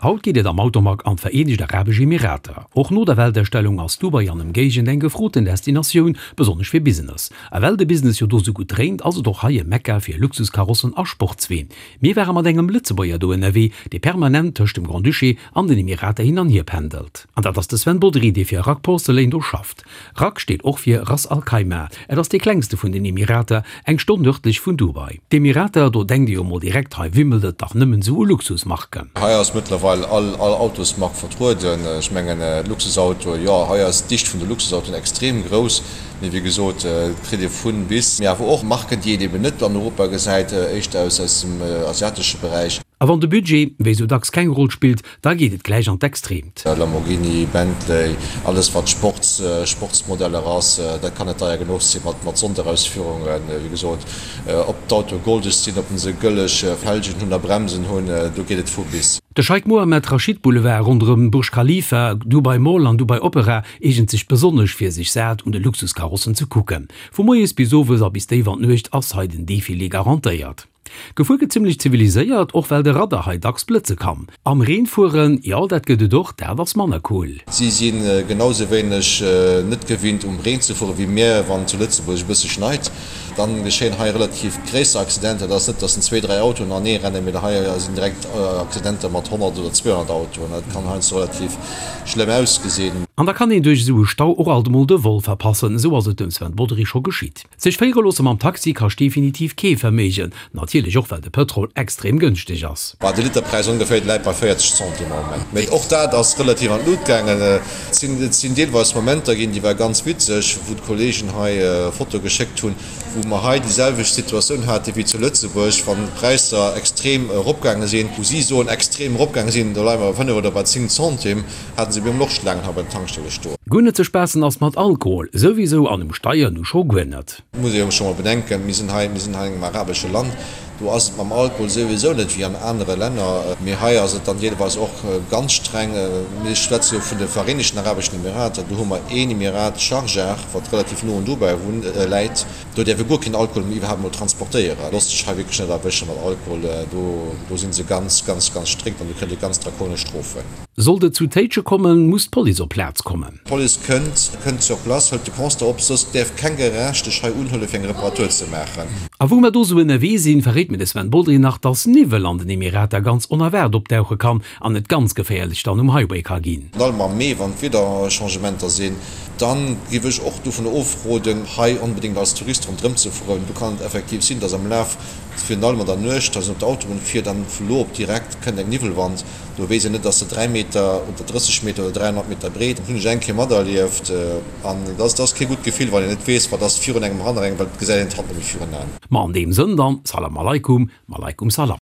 Haut geet et am Automag an d'Vereenegt Arabesch Emirater. Och no der Weltausstellung ass Dubai an Ëmgéigend eng gefroten Destinatioun, besonnesch fir Business. A well de Business jo do sou gutt dréint, ass et och hei e Mekka fir Luxuskarossen a Sportsween. Mir ware mat engem Lëtzebuerger do ënnerwee, dee permanent tëscht dem Grand-Duché an den Emirater hin an hier pendelt. An dat ass de Sven Bodry, dee fir Rack Porcelain do schafft. Rack steet och fir Ras Al Khaimah. Et ass dee klengste vun den Emirater, eng Stonn nërdlech vun Dubai. D'Emirater, do denkt ee jo mol direkt, hei wimmelt et dach nëmmen esou u Luxusmarken. Hei ass mëttlerweil all Autosmark vertrueden. Ech mengen Luxusautoen, jo, hei ass d'Dicht vun de Luxusautoen extrem grouss. Mee wéi gesot, et kritt ee vun bis. Mee awer och Marken, déi een eben net an Europa gesäit, éischter aus dem asiatesche Beräich. A wann de Budget, wéi sou dacks, keng Roll spillt, da geet et gläich an d'Extreemt. Lamborghini, Bentley, alles wat Sports, Sportsmodeller ass, dat kann net deier genuch sinn, mat mat Sonderausführungen. Wéi gesot, ob d'Autoe goldeg sinn, ob se gëlleg Felgen hunn a Bremsen hunn, do geet et vu bis. De Scheik Mohammed Rashid Boulevard ronderëm Burj Khalifa, Dubai Mall an Dubai Opera eegent sech besonnesch fir sech sat un de Luxuskarossen ze kucken. Vu moies bis owes a bis déif an d'Nuecht ass hei den Defilé garantéiert. Gefuer gëtt zimmlech ziviliséiert, och well de Radar hei dacks blëtze kann. Am Reen fueren, jo dat gëtt et och, dat ass manner cool. Si si genau sou wéineg net gewinnt um Reen ze fueren wéi mir, wann zu Lëtzebuerg e bësse schneit. Dann geschéien hei relativ gréisser Accidenter. Et ass net, dass en zwee, dräi Autoen anee rennen, mee hei sinn direkt Accidenter mat 100 oder 200 Autoen. Dat kann heiansdo relativ schlëmm ausgesinn. An da kann een duerch esou e Stau och alt emol de Vol verpassen, esou ass et dem Sven Bodry scho geschitt. Sech féiere loosse mam Taxi kascht definitiv kee Verméigen, natierlech och well de Pëtrol extrem gënschteg ass. Bah, de Literpräis ongeféier läit bei 40 Centimes am Moment. Mee och dat ass relativ an d'Lut gaangen. Et sinn deelweis Momenter ginn, déi war ganz witzeg, wou d'Kollegen hei Fotoe geschéckt hunn, wou mer hei déi selwecht Situatioun hate wéi zu Lëtzebuerg, wann d'Präisser extrem eropgaange sinn, wou si soen extrem eropgaange sinn, do leie mer bei 5 oder bei 10 Centimes. Haten se mir och Schlaangen hei bei den Tankstelle stoen. Guer net ze spaassen ass mat Alkohol souwisou an um Steier nu scho guer net. Muss ee jo scho mol bedenken, mir sinn hei, mir sinn hei an engem arabesche Land, do ass et mam Alkohol souwisou net wéi an anere Länner, mee hei ass et dann deelweis och ganz streng. Mir schwätze jo vun de Vereenegten Arabeschen Emirater, do hu mer een Emirat, Sharjah, wat relativ no un Dubai läit, do däerf ee guer keen Alkohol méi iwwerhaapt mol transportéieren. Loosst sech hei wierklech net erwësche mat Alkohol, do do si se ganz, ganz, ganz strikt an do kritt ee ganz drakonesch Strofen. Sollt et zu Téitsche kommen, muss d'Police op Plaz kommen. D'Police kënnt, kënnt sur place, hëlt de Constat op, soss däerf keng Garage dech hei unhuelen, fir eng Reparatur ze maachen. A wou mer do sou ënnerwee sinn, verréit mir de Sven Bodry nach, dass Niwwel an den Emirater ganz onerwaart opdauche kann an et ganz geféierlech dann um Highway ka ginn. Virun allem am Mee, wann d'Wiederchangementer sinn, dann géif ech och dovun ofroden, hei onbedéngt als Tourist ronderëm ze fueren. Do kann et effektiv sinn, dass am Laf, virun allem an der Nuecht, dass een op der Autobunn fiert an vu lo op direkt kënnt eng Niwwelwand. Do weess een net, ass se 3 Meter oder 30 Meter oder 300 Meter breet. Dat hunn ech eng Kéier materlieft an dat ass kee gutt Gefill, wann een net weess, wat ass virun engem, hanner engem, well et gesäit een d'Hand net méi virun Aen. Ma an deem Sënn dann, Salam Aleikum, Maleikum Salam.